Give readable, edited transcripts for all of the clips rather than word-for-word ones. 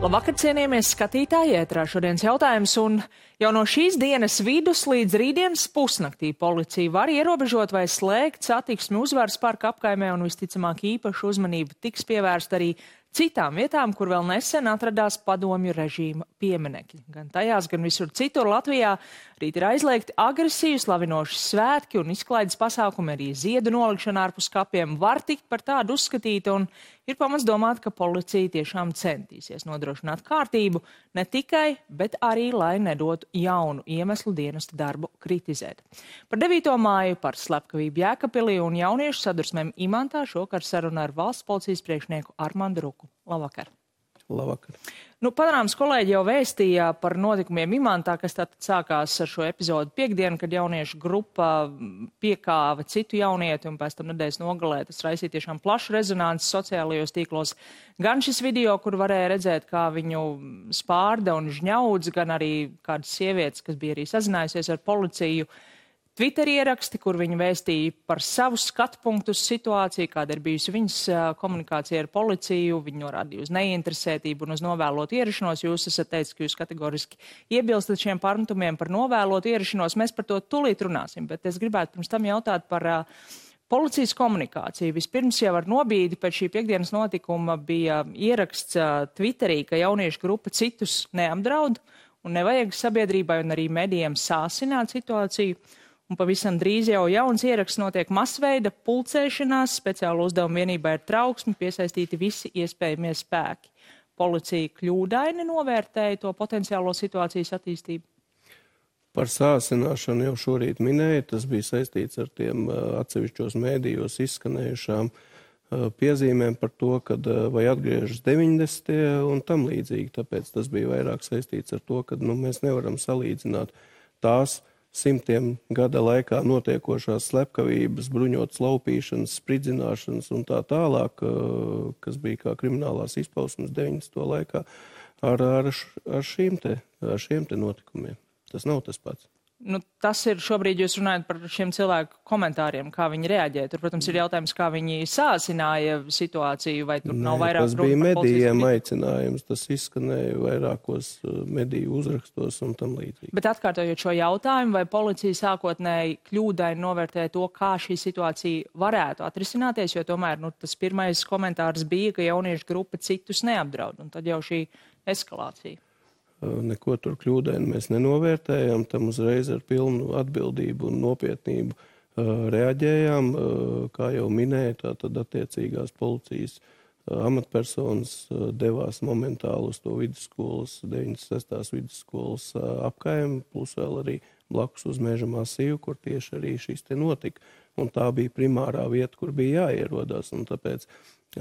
Labvakar, cienījamies skatītāji, ētrā šodienas jautājums, un jau no šīs dienas vidus līdz rītdienas pusnaktī policija var ierobežot vai slēgt satiksmi Uzvaras parka apkaimē, un visticamāk īpašu uzmanību tiks pievērsta arī citām vietām, kur vēl nesen atradās padomju režīma pieminekļi. Gan tajās, gan visur citur Latvijā rīt ir aizliegti agresīvi slavinoši svētki un izklaides pasākumi, arī ziedu nolikšana ārpus kapiem var tikt par tādu uzskatīta, un ir pamats domāt, ka policija tiešām centīsies nodrošināt kārtību ne tikai, bet arī, lai nedotu jaunu iemeslu dienesta darbu kritizēt. Par 9. māju, par slepkavību Jēkabpilī un jauniešu sadursmēm Imantā šokar saruna ar valsts policijas priekšnieku Armandu Ruku. Labvakar! Labvakar! Panorāmas kolēģi jau vēstīja par notikumiem Imantā, kas tātad sākās ar šo epizodu piekdienu, kad jauniešu grupa piekāva citu jaunieti un pēc tam nedēļas nogalē. Tas raisīja tiešām plašu rezonanci sociālajos tīklos. Gan šis video, kur varēja redzēt, kā viņu spārda un žņaudz, gan arī kādas sievietes, kas bija arī sazinājusies ar policiju, Twitter ieraksti, kur viņi vēstīja par savu skatu punktu uz situāciju, kāda ir bijusi viņas komunikācija ar policiju, viņi norādīja uz neinteresētību un uz novēlotu ierašanos. Jūs esat teicis, ka jūs kategoriski iebilstat šiem pārmetumiem par novēlotu ierašanos. Mēs par to tūlīt runāsim, bet es gribētu pirms tam jautāt par policijas komunikāciju. Vispirms jau ar nobīdi pēc šī piekdienas notikuma bija ieraksts Twitterī, ka jauniešu grupa citus neapdraud un nevajag sabiedrībai un arī medijiem sāsināt situāciju. Un pavisam drīz jau jauns ieraksts notiek masveida pulcēšanās, speciāla uzdevuma vienībā ir trauksmi, piesaistīti visi iespējamie spēki. Policija kļūdaini novērtēja to potenciālo situācijas attīstību? Par sāsināšanu jau šorīt minēja, tas bija saistīts ar tiem atsevišķos mēdījos izskanējušām piezīmēm par to, kad vai atgriežas 90. un tam līdzīgi. Tāpēc tas bija vairāk saistīts ar to, ka mēs nevaram salīdzināt tās simtiem gada laikā notiekošās slepkavības, bruņotas laupīšanas, spridzināšanas un tā tālāk, kas bija kā kriminālās izpausmes 90. laikā, ar šiem te notikumiem. Tas nav tas pats. Tas ir šobrīd jūs runājat par šiem cilvēku komentāriem, kā viņi reaģēja. Tur, protams, ir jautājums, kā viņi sāsināja situāciju, vai tur nav vairāk tas bija medijiem aicinājums, tas izskanēja vairākos mediju uzrakstos un tam līdzīgi. Bet atkārtojot šo jautājumu, vai policija sākotnēji kļūdaini novērtēja to, kā šī situācija varētu atrisināties, jo tomēr tas pirmais komentārs bija, ka jauniešu grupa citus neapdraud, un tad jau šī eskalācija. Neko tur kļūdaini mēs nenovērtējām, tam uzreiz ar pilnu atbildību un nopietnību reaģējām. Kā jau minēja, tātad attiecīgās policijas amatpersonas devās momentāli uz to vidusskolas, 96. vidusskolas apkaimi, plus vēl arī blakus uz Meža masīvu, kur tieši arī šis te notika. Un tā bija primārā vieta, kur bija jāierodās, un tāpēc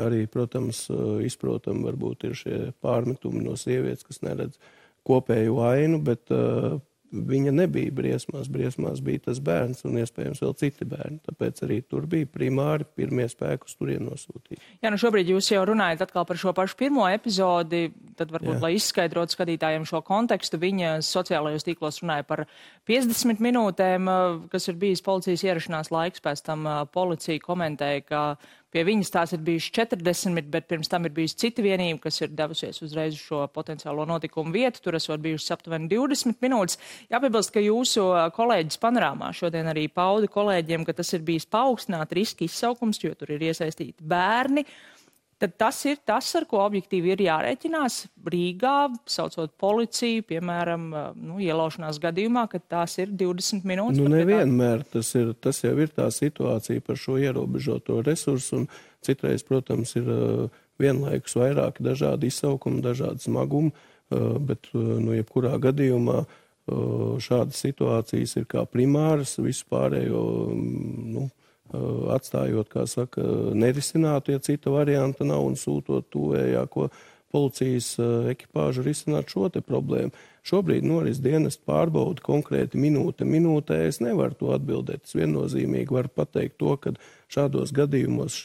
arī, protams, izprotam varbūt ir šie pārmetumi no sievietes, kas neredz kopēju ainu, bet viņa nebija briesmās. Briesmās bija tas bērns un iespējams vēl citi bērni. Tāpēc arī tur bija primāri pirmie spēki uz turien nosūtīti. Jā, šobrīd jūs jau runājat atkal par šo pašu pirmo epizodi, tad varbūt, lai izskaidrotu skatītājiem šo kontekstu, viņa sociālajos tīklos runāja par 50 minūtēm, kas ir bijis policijas ierašanās laiks. Pēc tam policija komentēja, ka pie viņas tās ir bijuši 40, bet pirms tam ir bijusi cita vienība, kas ir devusies uzreiz uz šo potenciālo notikumu vietu. Tur esot bijušas aptuveni 20 minūtes. Jāpiebilst, ka jūsu kolēģis Panorāmā šodien arī pauda kolēģiem, ka tas ir bijis paaugstināt riska izsaukums, jo tur ir iesaistīti bērni. Tad tas ir tas, ar ko objektīvi ir jārēķinās Rīgā, saucot policiju, piemēram, ielaušanās gadījumā, kad tās ir 20 minūtes. Nevienmēr tas jau ir tā situācija par šo ierobežoto resursu, un citreiz, protams, ir vienlaikus vairāki dažādi izsaukumi, dažādi smagumi, bet, jebkurā gadījumā šādas situācijas ir kā primāras, visu pārējo, atstājot, kā saka, nerisinātu, ja cita varianta nav, un sūtot tuvējāko policijas ekipāžu risināt šo te problēmu. Šobrīd noris dienestu pārbauda konkrēti minūtē. Es nevaru to atbildēt. Es viennozīmīgi varu pateikt to, ka šādos gadījumos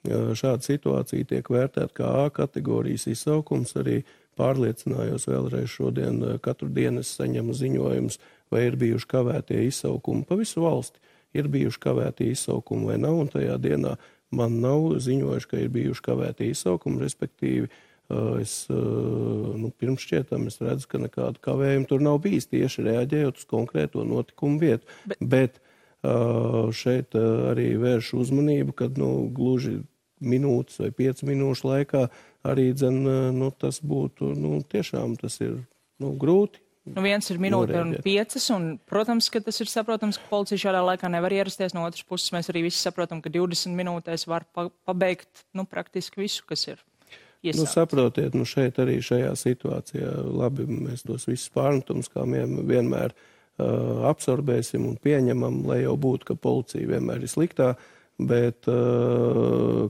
šāda situācija tiek vērtēta kā A kategorijas izsaukums. Arī pārliecinājos vēlreiz šodien, katru dienu es saņemu ziņojumus, vai ir bijuši kavētie izsaukumi pa visu valsti. Ir bijuši kavēti izsaukumi vai nav, un tajā dienā man nav ziņojuši, ka ir bijuši kavēti izsaukumi, respektīvi Pirms šķietam es redzu, ka nekāda kavējuma tur nav bijis tieši reaģējot uz konkrēto notikumu vietu. Bet šeit arī vērš uzmanību, kad gluži minūtes vai 5 minūšu laikā arī tas būtu, tiešām tas ir grūti. Viens ir minūte un 5, un, protams, ka tas ir saprotams, ka policija šādā laikā nevar ierasties. No otras puses, mēs arī visi saprotam, ka 20 minūtēs var pabeigt, praktiski visu, kas ir. Saprotiet, šeit arī šajā situācijā labi mēs tos visus pārmetumus, kā vienmēr absorbēsim un pieņemam, lai jau būtu, ka policija vienmēr ir sliktā, bet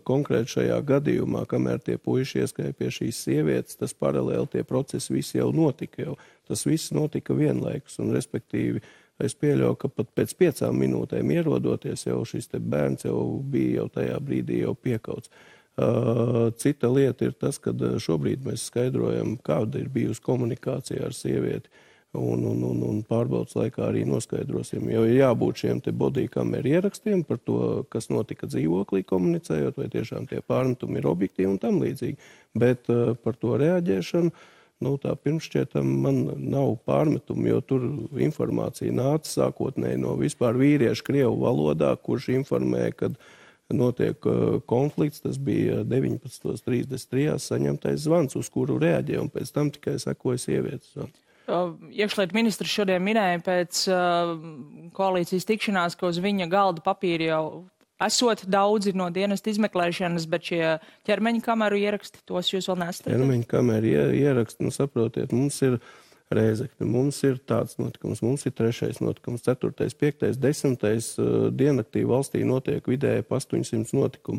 konkrēti šajā gadījumā, kamēr tie puiši ieskrēja pie šīs sievietes, tas paralēli tie procesi visi jau notika. Tas viss notika vienlaikus, un respektīvi es pieļauju, ka pat pēc 5 minūtēm ierodoties jau šis te bērns jau bija jau tajā brīdī jau piekauts. Cita lieta ir tas, ka šobrīd mēs skaidrojam, kāda ir bijusi komunikācija ar sievieti, un pārbaudas laikā arī noskaidrosim, jo ir jābūt šiem te bodykameru ierakstiem par to, kas notika dzīvoklī komunicējot, vai tiešām tie pārmetumi ir objektīvi un tam līdzīgi. Bet par to reaģēšanu, tā pirmšķietam man nav pārmetumu, jo tur informācija nāca sākotnēji no vispār vīriešu krievu valodā, kurš informēja, kad notiek konflikts, tas bija 19.33. saņemtais zvans, uz kuru reaģēja, un pēc tam tikai sekoja sievietes zvans. Iekšlietu ministrs šodien minēja pēc koalīcijas tikšanās, ka uz viņa galda papīri jau esot daudzi no dienesta izmeklēšanas, bet šie ķermeņa kameru ieraksti, tos jūs vēl nesat? Ķermeņa kameru ieraksti, saprotiet, mums ir Rēzekne, mums ir tāds notikums, mums ir 3. notikums, 4., 5., 10. diennaktī valstī notiek vidēji 800 notikumu.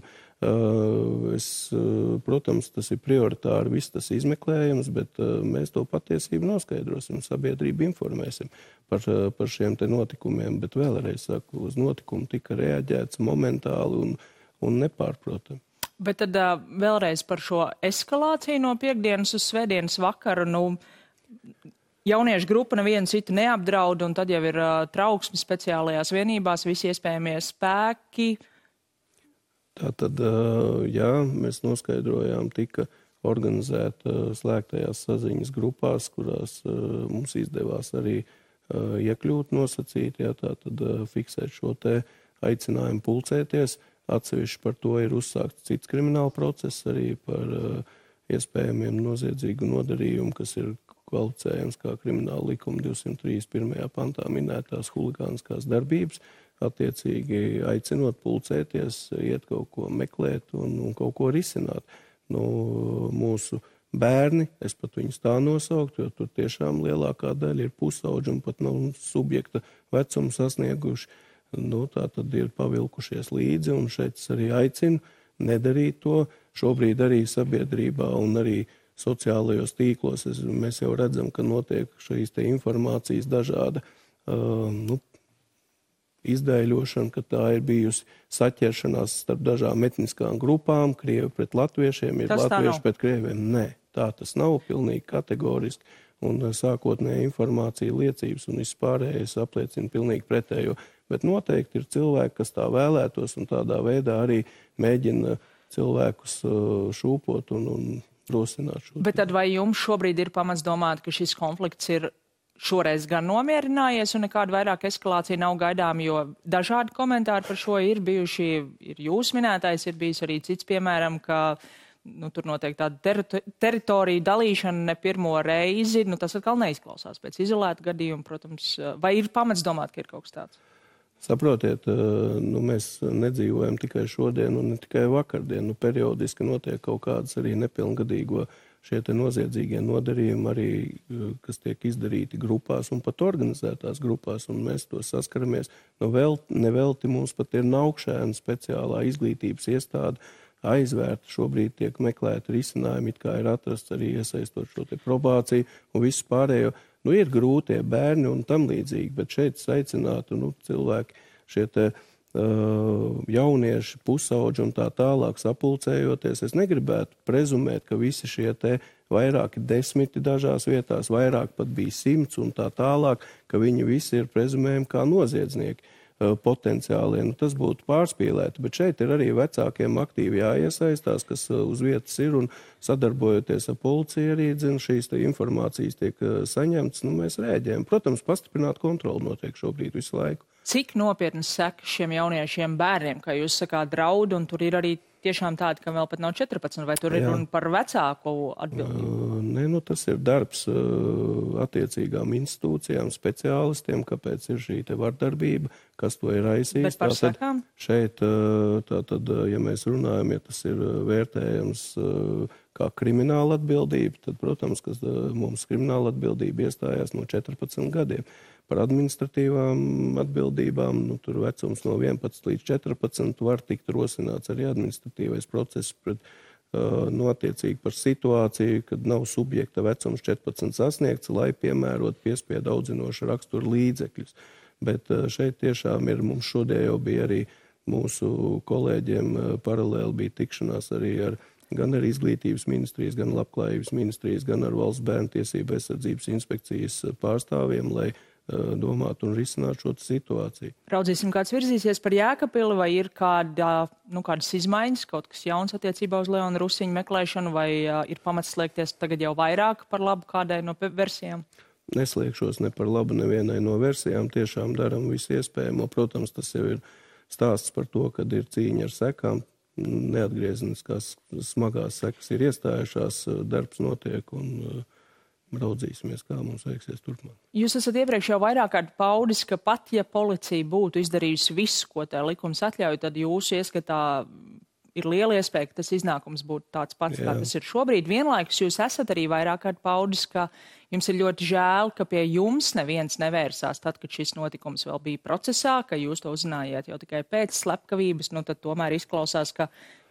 Protams, tas ir prioritāri, viss tas izmeklējums, bet mēs to patiesību noskaidrosim, sabiedrību informēsim par šiem te notikumiem, bet vēlreiz saku, uz notikumu tika reaģēts momentāli un nepārprotam. Bet tad vēlreiz par šo eskalāciju no piekdienas uz svētdienas vakaru, jauniešu grupa nevienu citu neapdraud, un tad jau ir trauksme speciālajās vienībās, visi iespējamie spēki. Tātad, jā, mēs noskaidrojām, tika organizēta slēgtajās saziņas grupās, kurās mums izdevās arī iekļūt nosacīt, tātad fiksēt šo te aicinājumu pulcēties. Atsevišķi par to ir uzsākts cits krimināla process arī par iespējamiem noziedzīgu nodarījumu, kas ir kvalificējams kā krimināla likuma 231. pantā minētās huligāniskās darbības, attiecīgi aicinot pulcēties, iet kaut ko meklēt un kaut ko risināt. Mūsu bērni, es pat viņus tā nosauktu, jo tur tiešām lielākā daļa ir pusauģi un pat nav subjekta vecumu sasnieguši. Tā tad ir pavilkušies līdzi, un šeit es arī aicinu nedarīt to. Šobrīd arī sabiedrībā un arī sociālajos tīklos mēs jau redzam, ka notiek šīs te informācijas dažāda izdēļošana, ka tā ir bijusi saķeršanās starp dažām etniskām grupām, krievi pret latviešiem, ir latvieši pret krieviem. Nē, tā tas nav pilnīgi kategoriski, un sākotnēja informācija, liecības un vispārējais apliecina pilnīgi pretējo. Bet noteikti ir cilvēki, kas tā vēlētos un tādā veidā arī mēģina cilvēkus šūpot un rosināt šo. Bet tad vai jums šobrīd ir pamats domāt, ka šis konflikts ir šoreiz gan nomierinājies un nekāda vairāk eskalācija nav gaidām, jo dažādi komentāri par šo ir bijuši, ir jūs minētais, ir bijis arī cits, piemēram, ka tur notiek tāda teritorija dalīšana ne pirmo reizi, tas atkal neizklausās pēc izolēta gadījuma, protams, vai ir pamats domāt, ka ir kaut kas tāds? Saprotiet, mēs nedzīvojam tikai šodien un ne tikai vakardien. Periodiski notiek kaut kādas arī nepilngadīgo šie te noziedzīgie nodarījumi, arī, kas tiek izdarīti grupās un pat organizētās grupās, un mēs to saskaramies. Nevelti mums pat ir Naukšēna speciālā izglītības iestāde aizvērta. Šobrīd tiek meklēti risinājumi, it kā ir atrasts arī iesaistot šo te probāciju un visu pārējo. Ir grūtie bērni un tam līdzīgi, bet šeit aicinātu cilvēki, šie te jaunieši, pusauģi un tā tālāk sapulcējoties. Es negribētu prezumēt, ka visi šie te vairāki 10 dažās vietās, vairāk pat bija 100 un tā tālāk, ka viņi visi ir prezumējumi kā noziedznieki. potenciālie. Tas būtu pārspīlēti, bet šeit ir arī vecākiem aktīvi jāiesaistās, kas uz vietas ir un sadarbojoties ar policiju arī, šīs informācijas tiek saņemtas, mēs rēģējam. Protams, pastiprināt kontroli notiek šobrīd visu laiku. Cik nopietnas sekas šiem jauniešiem bērniem, kā jūs sakāt, draud, un tur ir arī tiešām tādi, ka vēl pat nav 14, vai tur ir runa par vecāku atbildību? Nē, tas ir darbs attiecīgām institūcijām, speciālistiem, kāpēc ir šī te vardarbība, kas to ir raisījis. Bet par sekām? Šeit, ja mēs runājam, ja tas ir vērtējams kā krimināla atbildība, tad, protams, ka mums krimināla atbildība iestājās no 14 gadiem. Par administratīvām atbildībām, tur vecums no 11 līdz 14 var tikt rosināts arī administratīvais process pret attiecīgi par situāciju, kad nav subjekta vecums 14 sasniegts, lai piemērot piespiedu audzinošu raksturu līdzekļus. Bet šeit tiešām ir, mums šodien jau bija arī mūsu kolēģiem paralēli bija tikšanās arī gan ar Izglītības ministrijas, gan Labklājības ministrijas, gan ar Valsts bērntiesību aizsardzības inspekcijas pārstāvjiem, lai domāt un risināt šo situāciju. Raudzīsim, kāds virzīsies par Jēkabpili, vai ir kādas izmaiņas, kaut kas jauns attiecībā uz Leona Rusiņa meklēšanu, vai ir pamats slēgties tagad jau vairāk par labu kādai no versijām? Neslēgšos ne par labu nevienai no versijām, tiešām daram visu iespējamo. Protams, tas jau ir stāsts par to, kad ir cīņa ar sekām, neatgriezeniskās smagās sekas ir iestājušās, darbs notiek un raudzīsimies, kā mums veiksies turpmāk. Jūs esat iepriekš jau vairāk kārt paudis, ka pat ja policija būtu izdarījusi visu, ko tā likums atļauj, tad jūsu ieskatā ir liela iespēja, ka tas iznākums būtu tāds pats, kā tas ir šobrīd. Vienlaikus jūs esat arī vairāk kārt paudis, ka jums ir ļoti žēl, ka pie jums neviens nevērsās tad, kad šis notikums vēl bija procesā, ka jūs to uzzinājāt jau tikai pēc slepkavības, tad tomēr izklausās, ka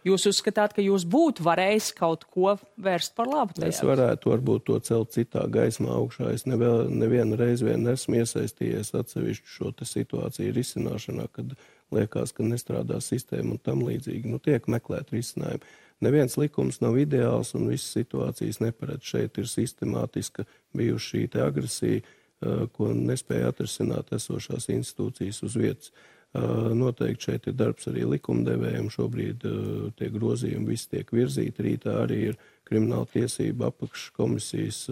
jūs uzskatāt, ka jūs būtu varējis kaut ko vērst par labu tajā? Es varētu varbūt to celt citā gaismā augšā. Es nevienu reizi esmu iesaistījies atsevišķu šo situāciju risināšanā, kad liekas, ka nestrādā sistēma un tam līdzīgi. Tiek meklēt risinājumi. Neviens likums nav ideāls un visas situācijas neparedz. Šeit ir sistemātiska bijuši šī agresija, ko nespēja atrisināt esošās institūcijas uz vietas. Noteikti šeit ir darbs arī likumdevējiem. Šobrīd tie grozījumi visi tiek virzīti. Rītā arī ir krimināla tiesība apakškomisijas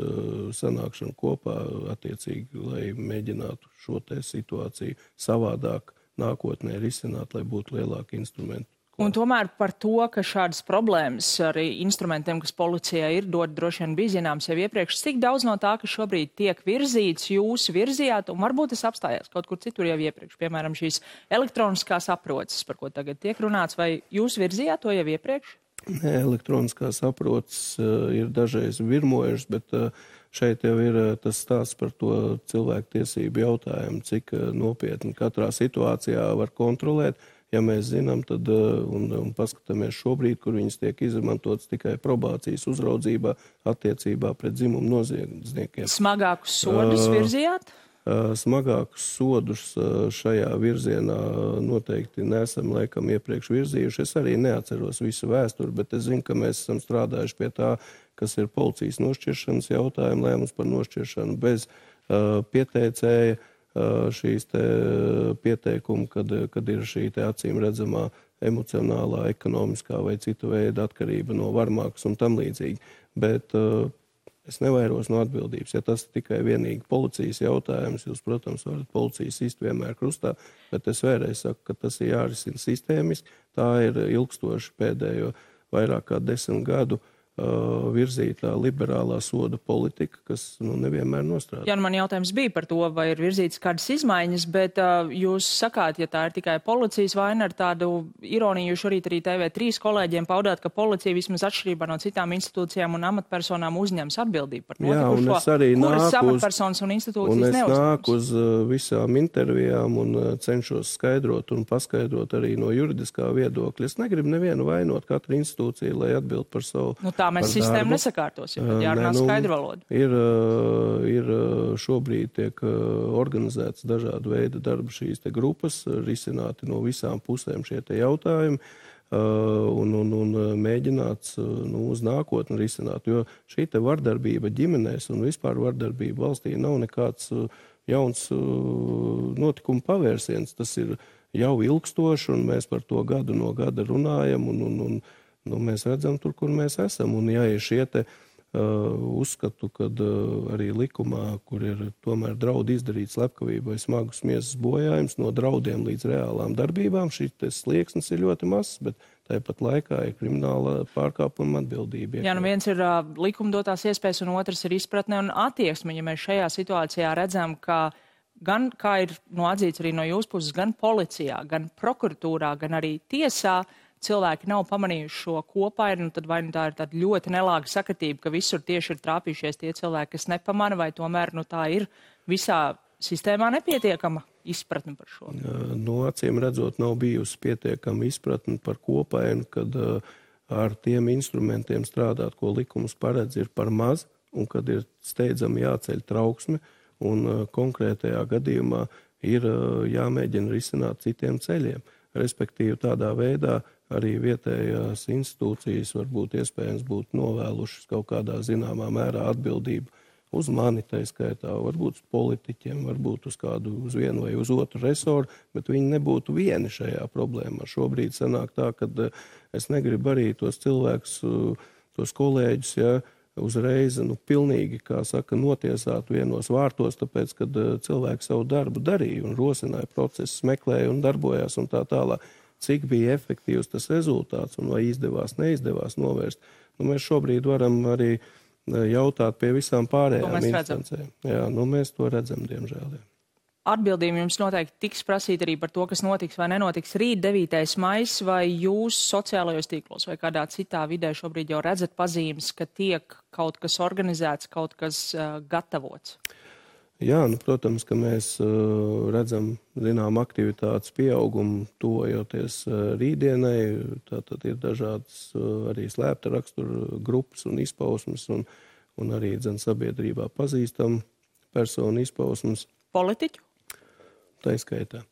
sanākšana kopā attiecīgi, lai mēģinātu šo situāciju savādāk nākotnē risināt, lai būtu lielāki instrumenti. Un tomēr par to, ka šādas problēmas arī instrumentiem, kas policijai ir, droši vien bija zināms jau iepriekš, cik daudz no tā, kas šobrīd tiek virzīts, jūs virzījāt, un varbūt tas apstājās kaut kur citur jau iepriekš, piemēram, šīs elektroniskās aproces, par ko tagad tiek runāts, vai jūs virzījāt to jau iepriekš? Nē, elektroniskās aproces ir dažreiz virmojušas, bet šeit jau ir tas stāsts par to cilvēku tiesību jautājumu, cik nopietni katrā situācijā var kontrolēt. Ja mēs zinām, tad un paskatāmies šobrīd, kur viņas tiek izmantotas tikai probācijas uzraudzībā attiecībā pret dzimumu noziedzniekiem. Smagākus sodus virzījāt? Smagākus sodus šajā virzienā noteikti nesam laikam iepriekš virzījuši. Es arī neatceros visu vēsturi, bet es zinu, ka mēs esam strādājuši pie tā, kas ir policijas nošķiršanas jautājumi, lēmums par nošķiršanu bez pieteicēja. Šīs pieteikumi, kad ir šī acīm redzamā emocionālā, ekonomiskā vai citu veidu atkarība no varmākas un tam līdzīgi. Bet es nevairos no atbildības. Ja tas ir tikai vienīgi policijas jautājums, jūs, protams, varat policijas sist vienmēr krustā, bet es vēlreiz saku, ka tas ir jārisina sistēmiski. Tā ir ilgstoši pēdējo vairāk kā 10 gadu virzītā liberālā soda politika, kas nevienmēr nostrādā. Jā, man jautājums bija par to, vai ir virzītas kādas izmaiņas, bet jūs sakāt, ja tā ir tikai policijas vaina, ar tādu ironiju šorīt arī TV3 kolēģiem paudāt, ka policija vismaz atšķirībā no citām institūcijām un amatpersonām uzņems atbildību par notikušo, kuras amatpersonas un institūcijas neuzņems. Un es nāku uz visām intervijām un cenšos skaidrot un paskaidrot arī no juridiskā viedokļa. Es negribu nevienu vainot katru institūciju, lai atbild par savu mēs sistēmu nesakārtosim, bet jārunā skaidru valodu. Ir šobrīd tiek organizētas dažādu veidu darba šīs grupas, risināti no visām pusēm šie jautājumi un mēģināts uz nākotni risināt, jo šī vardarbība ģimenēs un vispār vardarbība valstī nav nekāds jauns notikuma pavērsiens. Tas ir jau ilgstoši, un mēs par to gadu no gada runājam, un mēs redzam tur, kur mēs esam. Un ja ir šie te uzskatu, kad arī likumā, kur ir tomēr draudi izdarīt slepkavību vai smagus miesas bojājums, no draudiem līdz reālām darbībām, šis slieksnis ir ļoti mazs, bet tāpat laikā ir krimināla pārkāpuma atbildība. Jā, viens ir likumdotās iespējas, un otrs ir izpratne un attieksme. Ja mēs šajā situācijā redzam, ka gan, kā ir atzīts arī no jūsu puses, gan policijā, gan prokuratūrā, gan arī tiesā, cilvēki nav pamanījuši šo kopainu, tad vai tā ir tāda ļoti nelāga sakritība, ka visur tieši ir trāpījušies tie cilvēki, kas nepamana, vai tomēr tā ir visā sistēmā nepietiekama izpratne par šo? Acīm redzot, nav bijusi pietiekama izpratne par kopainu, kad ar tiem instrumentiem strādāt, ko likums paredz, ir par maz, un kad ir steidzami jāceļ trauksme, un konkrētajā gadījumā ir jāmēģina risināt citiem ceļiem. Respektīvi tādā veidā arī vietējās institūcijas varbūt iespējams būtu novēlušas kaut kādā zināmā mērā atbildību uz mani, tā skaitā, varbūt uz politiķiem, varbūt uz vienu vai uz otru resoru, bet viņi nebūtu vieni šajā problēmā. Šobrīd sanāk tā, ka es negribu arī tos cilvēkus, tos kolēģus, uzreiz, pilnīgi, kā saka, notiesāt vienos vārtos, tāpēc, kad cilvēki savu darbu darīja un rosināja procesus, meklēja un darbojās un tā tālāk. Cik bija efektīvs tas rezultāts un vai izdevās, neizdevās novērst. Mēs šobrīd varam arī jautāt pie visām pārējām instancēm. Jā, mēs to redzam, diemžēl. Jā. Atbildība jums noteikti tiks prasīt arī par to, kas notiks vai nenotiks rīt 9. maijs, vai jūs sociālajos tīklos vai kādā citā vidē šobrīd jau redzat pazīmes, ka tiek kaut kas organizēts, kaut kas gatavots? Jā, protams, ka mēs redzam, aktivitātes pieaugumu tuvojoties rītdienai. Tātad ir dažādas arī slēpta rakstura grupas un izpausmes, un arī sabiedrībā pazīstam personu izpausmes. Politiķu? Tā izskaitā.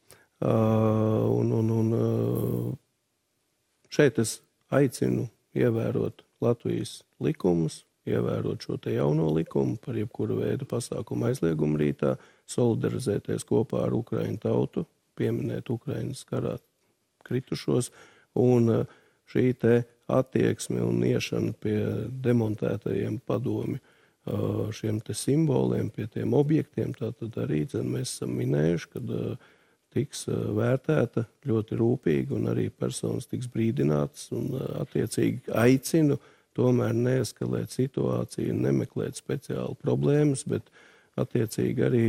Šeit es aicinu ievērot Latvijas likumus, ievērot šo te jauno likumu par jebkuru veidu pasākumu aizliegumu rītā, solidarizēties kopā ar Ukraiņu tautu, pieminēt Ukrainas karā kritušos, un šī te attieksme un iešana pie demontētajiem padomi šiem te simboliem, pie tiem objektiem, tātad arī mēs esam minējuši, kad tiks vērtēta ļoti rūpīgi un arī personas tiks brīdinātas un attiecīgi aicinu tomēr neeskalēt situāciju, nemeklēt speciālu problēmas, bet attiecīgi arī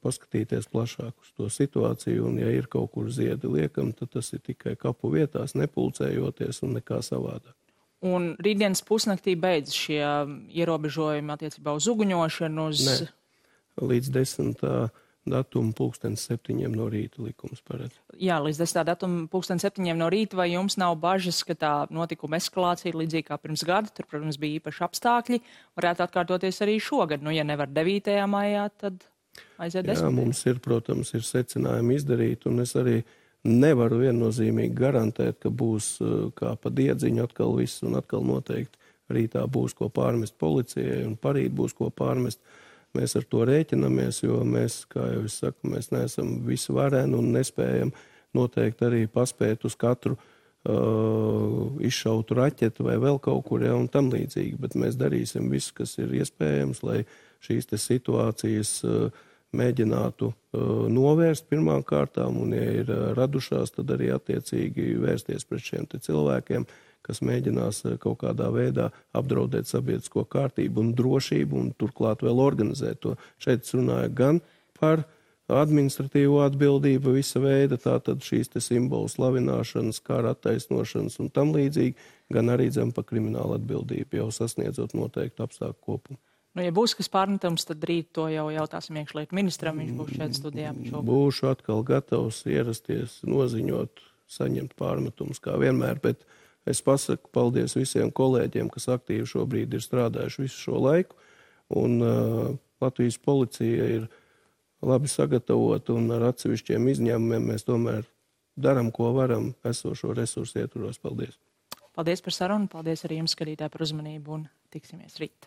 paskatīties plašāk uz to situāciju, un ja ir kaut kur ziedi liekam, tad tas ir tikai kapu vietās, nepulcējoties un nekā savādāk. Un rītdienas pusnaktī beidz šie ierobežojumi attiecībā uz uguņošanu? Nē, līdz 10. datuma 7:00 no rīta likums paredz. Jā, līdz 10. datuma 7:00 no rīta, vai jums nav bažas, ka tā notikuma eskalācija līdzīgi kā pirms gada, tur, protams, bija īpaši apstākļi, varētu atkārtoties arī šogad? Ja nevar 9. maijā, tad aiziet 10. Jā, mums ir, protams, ir secinājumi izdarīt, un es arī nevaru viennozīmīgi garantēt, ka būs kā pa diedziņu atkal viss, un atkal noteikti rītā būs ko pārmest policijai, un parīt būs ko pārmest. Mēs ar to rēķinamies, jo mēs, kā jau es saku, mēs neesam visvareni un nespējam noteikti arī paspēt uz katru izšautu raķetu vai vēl kaut kur, un tam līdzīgi. Bet mēs darīsim visu, kas ir iespējams, lai šīs te situācijas mēģinātu novērst pirmām kārtām, un ja ir radušās, tad arī attiecīgi vērsties pret šiem te cilvēkiem, kas mēģinās kaut kādā veidā apdraudēt sabiedrisko kārtību un drošību, un turklāt vēl organizēt to. Šeit es runāju gan par administratīvo atbildību visa veida, tātad šīs te simbolu slavināšanas, kara attaisnošanas un tam līdzīgi, gan arī zem par kriminālu atbildību, jau sasniedzot noteiktu apstākļu kopumu. Ja būs kas pārmetams, tad rīt to jau jautāsim iekšlietu ministram, viņš būs šeit studijā. Būšu atkal gatavs ierasties, noziņot, saņemt pārmetumus kā vienmēr, bet es pasaku paldies visiem kolēģiem, kas aktīvi šobrīd ir strādājuši visu šo laiku, un Latvijas policija ir labi sagatavota, un ar atsevišķiem izņēmumiem mēs tomēr daram, ko varam, esošo resursu ietvaros. Paldies! Paldies par sarunu, paldies arī jums, skatītāji, par uzmanību, un tiksimies rīt!